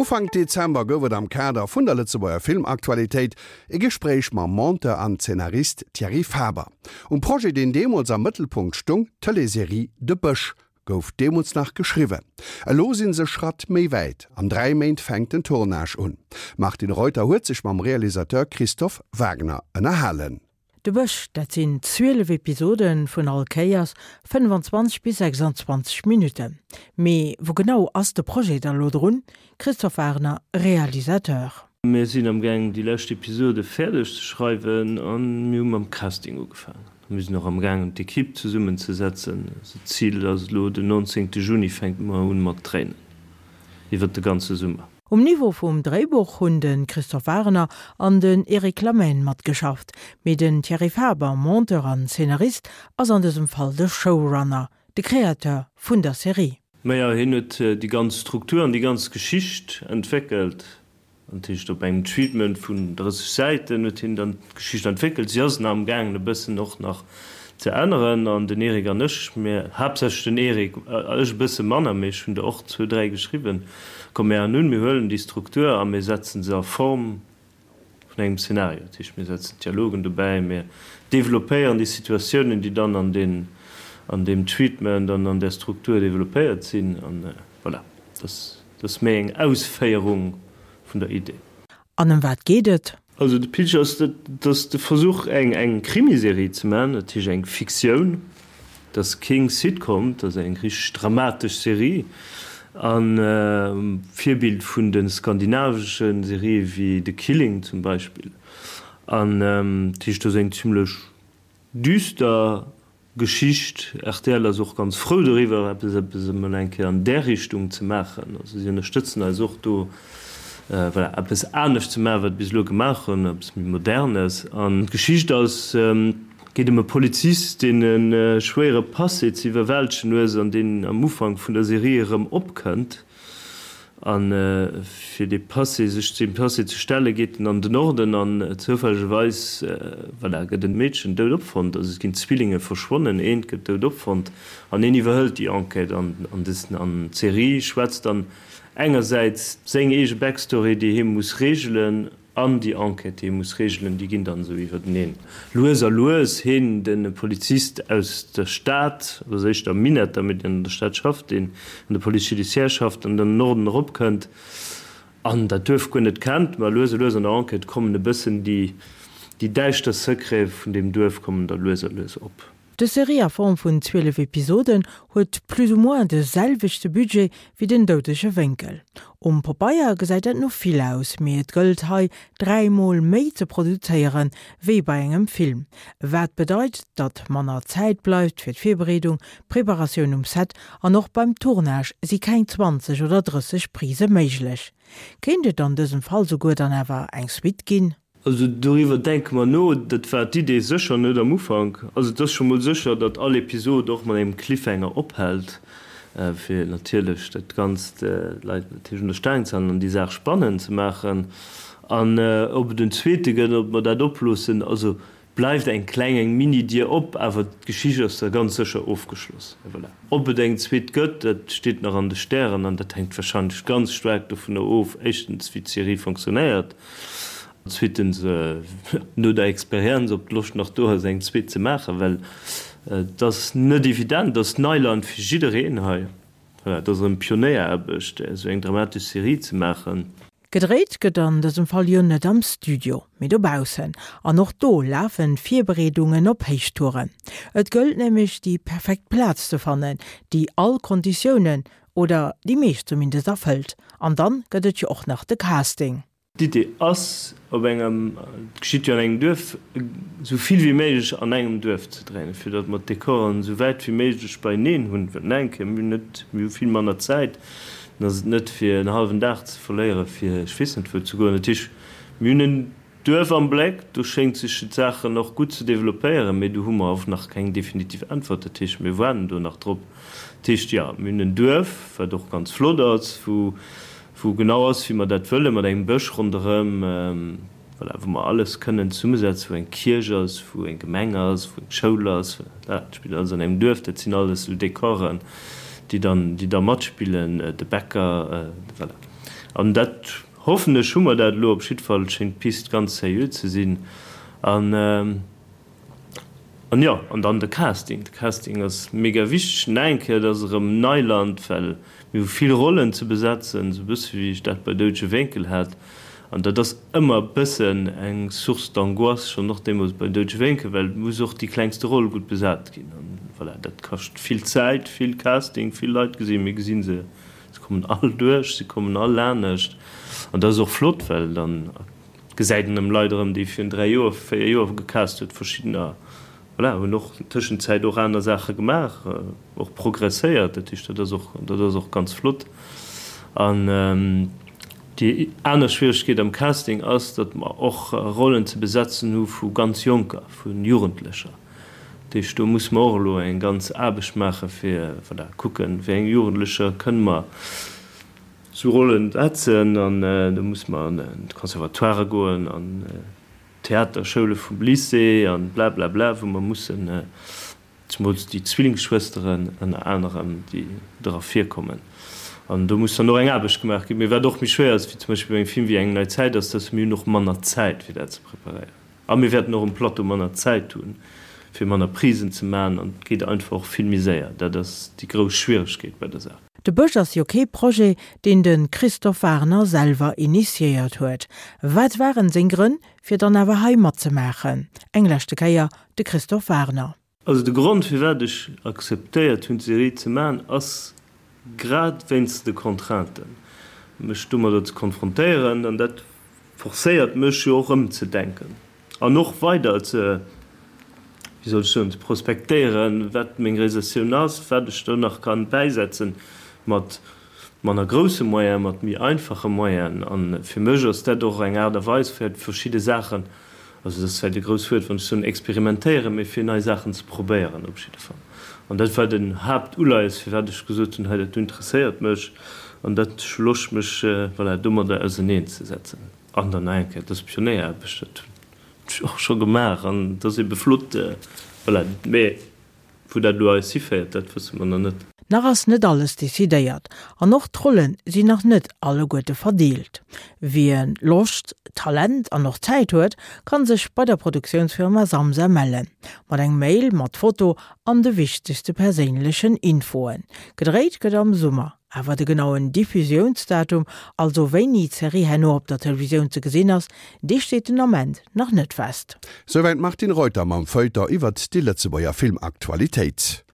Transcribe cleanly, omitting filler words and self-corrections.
Ufank Dezember gouf et am Kader vun der Lëtzebuerger Filmaktualitéit e Gespréich mam Monteur an Zeenarist Thierry Faber. Um Projet, deen deemools am Mëttelpunkt stung, d'Tëleesserie De Bësch, gouf deemools nach geschriwwen. Elo sinn se Schratt méi wäit, an 3 Méint fänkt den Tournage un. D'Martine Reuter huet sech mam Realisateur Christophe Wagner ënnerhalen. De Bësch, dat sinn 12 Episode vun all Kéiers 25 bis 26 Minutten. Mee wou genau ass de Projet da lo drun? Christophe Wagner, Realisateur. Mir sinn am gaang déi lescht Episode fäerdeg ze schreiwen a mir hu mam Casting ugefaangen. Mir sinn och am gaangen d'Ekipp zesummen ze setzen. Also d'Zil ass elo den 19 Juni fänke mer un mat dréinen iwwert de ganze Summer. Um Niveau vum Dréibuch hunn de Christophe Wagener an den Eric Lamaine matgeschafft, mee den Thierry Faber, Monteur an Zeenarist, ass an dësem Fall de Showrunner, de Créateur vun der Serie. Majo, hien huet déi ganz Struktur an déi ganz Geschicht entwéckelt. Dat heescht, op engem Treatment vun 30 Säiten huet hien dann d'Geschicht entwéckelt. Si ass nach amgaangen e bëssen och nach ze änneren. An den Eric an ech, mir, haaptsächlech den Eric, ech e bësse manner, mee ech hunn der och zwou, dräi geschriwwen, komm mir an hunn, mir huelen déi Struktur a mir setzen se a Form vun engem Szenario. Dat heescht, mir setzen d'Dialogen dobäi, mir developpéieren déi Situatiounen, déi dann an deen, an deem Treatment an an där Struktur developpéiert sinn. An voilà, dat ass méi eng Ausféierung vun der Idee. An ëm wat geet et? Also de Pitch ass, dat ass de Versuch eng eng Krimiserie ze maachen, dat heescht eng Fiktioun. Dat ass keng Sitcom, dat ass eng richteg dramatesch Serie an Virbild vun de skandinavesche Serië wéi The Killing zum Beispill. An dat heescht, dat ass eng zimlech düster Geschicht. Rtl ass och ganz frou doriwwer, eppes eppes emol eng Kéier an där Richtung ze maachen. Also si ënnerstëtzen eis och do, voilà, eppes anescht ze maachen, wat bis elo gemaach hunn, eppes méi Modernes. An d'Geschicht ass, geet ëm e Polizist, deen e schwéiere Passé ze iwwerwältegen hues an deen am Ufank vun der Serie erëm opkënnt. A fir dee Passé, sech deem Passé ze stellen, geet en an den Norden an zoufällegerweis, voilà, gëtt en Meedchen dout opfonnt. Also et ginn Zwillinge verschwonnen, eent gëtt dout opfonnt an een iwwerhëlt déi Enquête. An an des an d'Serie schwätzt dann engersäits seng eege Backstory, déi hie muss reegelen, An déi Enquête, déi ee muss regelen, déi ginn dann esou iwwerteneen. Lues a lues, heen, de Polizist aus der Stad, oder éischter am Minett, mee deen an der Stad schafft, deen an der Police judiciaire schafft an dann den Norden eropkënnt an dat Duerf guer net kennt, ma lues a lues an der Enquête kommen e bëssen déi, déi däischter Secrete vun deem Duerf kommen da lues a lues op. Dës Serie a Form vun 12 Episoden huet plus ou moins de selwechte Budget wéi Den doudege Wénkel. Um Popeier gesäit dat no vill aus, mee et gëllt hei 3 mol méi ze produzéieren wéi bei engem Film. Wat bedeit, datt manner Zäit bleift fir d'Virbereedung, d'Preparatioun um Set an och beim Tournage si keng 20 oder 30 Prise méiglech. Kéint et an dësem Fall souguer dann awer eng Suite ginn? Also doriwwer denke mer no. Dat war d'Idee sécher net am Ufank. Also et ass scho mol sécher, datt all Episod och mat engem Cliffhanger ophält, fir natierlech dat Ganzt d'Leit natierlech un der Staang ze halen an déi Saach spannend ze maachen. An ob et en zweete gëtt, ob mer dat oploossen, also bleift eng kleng, eng Mini-Dier op, awer d'Geschicht ass da ganz sécher ofgeschloss. Et voilà. Ob et eng zweet gëtt, dat steet nach an de Stären an dat hänkt warscheinlech ganz staark dovunner of, éischtens wéi d'Serie fonctionnéiert, Zweetens, no der Experienz, ob d'Loscht nach do ass, eng zweet ze maachen, well et ass net evident, et ass Neiland fir jiddereen hei. Voilà, et ass erëm Pionéieraarbecht, esou eng dramatesch Serie ze maachen. Gedréit gëtt an dësem Fall jo net am Studio, mee dobaussen. An och do lafen d'Virbereedungen op Héichtouren. Et gëllt nämlech déi perfekt Plaz ze fannen, déi all Konditiounen, oder déi meescht zumindest, erfëllt. An dann gëtt et jo och nach de Casting. D'Idee ass, op engem, et geschitt jo an engem Duerf, esou vill wéi méiglech an engem Duerf ze dréinen, fir datt mer d'Dekoren esou wäit wéi méiglech beieneen hunn. Well nach eng Kéier, mir hunn net, mir hu vill manner Zäit, dann ass et net fir en hallwen Dag ze verléiere fir ech weess net wou ze goen. Dat heescht, mir hunn en Duerf am Bléck, do schéngt sech d'Saachen och gutt ze developpéieren, mee do hu mer och nach keng definitiv Äntwert. Dat heescht, mir waarden do nach drop. Dat heescht, jo, mir hunn en Duerf, wat och ganz flott ass, wou wou genau ass, wéi mer dat wëllen, mat engem Bësch ronderëm, voilà, wou mer alles kënnen zesummesetzen, wou eng Kierch ass, wou eng Gemeng ass, wou eng Schoul ass, voilà, dat spillt alles an engem Duerf. Dat sinn alles esou Dekoren, déi dann, déi da matspillen, de Bäcker, voilà. An dat, hoffen ech, hu mer dat elo. Op jiddwer Fall schéngt d'Pist ganz seriö ze sinn. An, an jo, an dann de Casting. De Casting ass mega wichteg. Nach eng Kéier, et ass erëm Neiland, well mir hu vill Rollen ze besetzen, esou e bësse wéi ech dat bei Doudege Wénkel hat. An dat ass ëmmer e bëssen eng Source d'angoisse, schonn och deemools bei Doudege Wénkel, well et muss och déi klengste Roll gutt besat ginn. An voilà, dat kascht vill Zäit, vill Casting, vill Leit gesinn. Mir gesi se, se kommen all duerch, se kommen all anescht. An dat ass och flott, well dann gesäit een erëm Leit erëm, déi virun 3 Joer, 4 Joer gecast huet, verschiddener, voilà, hunn och Tëschenzäit och aner Saache gemaach, och progresséiert. Dat heescht, dat ass och, dat ass och ganz flott. An déi aner Schwieregkeet am Casting ass, datt mer och Rollen ze besetzen hu vu ganz Jonker, vu Jugendlecher. Dat heescht, do musse mer och elo eng ganz Aarbecht maache fir, voilà, kucken, wéi eng Jugendlecher kënne mer sou Rollen setzen. An do musse mer an d'Conservatoirë goen, an Theaterschoule vum Lycée an blablabla, wou mer mussen, zemools déi Zwillingsschwësteren ënner anerem, déi dra virkommen. An do muss dann och eng Aarbecht gemaach ginn. Mee wat och méi schwéier ass, wéi zum Beispill bei engem Film wéi Eng nei Zäit, ass, dass mir hunn och manner Zäit, fir dat ze preparéieren. A mir wäerten och um Plateau manner Zäit hunn, fir manner Prisen ze maachen. An et geet einfach och vill méi séier. Dat ass déi grouss Schwieregkeet bei der Saach. De Bësch ass jo kee Projet, deen de Christophe Wagner selwer initiéiert huet. Wat waren seng Grënn, fir dann awer hei matzemaachen? Eng leschte Kéier de Christophe Wagner. Also de Grond firwat ech akzeptéiert hunn d'Serie ze maachen ass grad wéinst de Contrainten, mech domadder ze konfrontéieren an dat forcéiert mech jo och ëmzedenken an och weider ze, wéi soll ech soen, ze prospektéieren, wat meng Realisatioun ass, wat ech do nach kann bäisetzen mat manner grousse Moyen, mat méi einfache Moyen. A fir mech ass dat och eng Aart a Weis fir verschidde Saachen, also dat ass vläicht e grousst Wuert, wann ech soen experimentéieren, mee fir nei Saachen ze probéieren op jidde Fall. An dat war den Haaptuleies, firwat ech gesot hunn, hei dat do interesséiert mech an dat ech hu Loscht mech, voilà, domadder auserneenzesetzen. An dann nach eng Kéier, dat ass Pionéieraarbecht, dat hunn ech och scho gemaach an dat ass ebe flott, voilà. Mee wou dat elo eis hiféiert, dat wësse mer nach net. Nach ass net alles decidéiert an och d'Rolle sinn nach net alleguerte verdeelt. Wien Loscht, Talent an och Zäit huet, kann sech bei der Produktiounsfirma Samsa mellen. Mat engem Mail mat Foto an de wichtegste perséinlechen Infoen. Gedréit gëtt am Summer. Awer de genauen Diffusiounsdatum, also wéini d'Serie herno op der Televisioun ze gesinn ass, dee steet den Ament nach net fest. Souwäit d'Martine Reuter mam Feuilleton iwwert déi Lëtzebuerger Filmaktualitéit.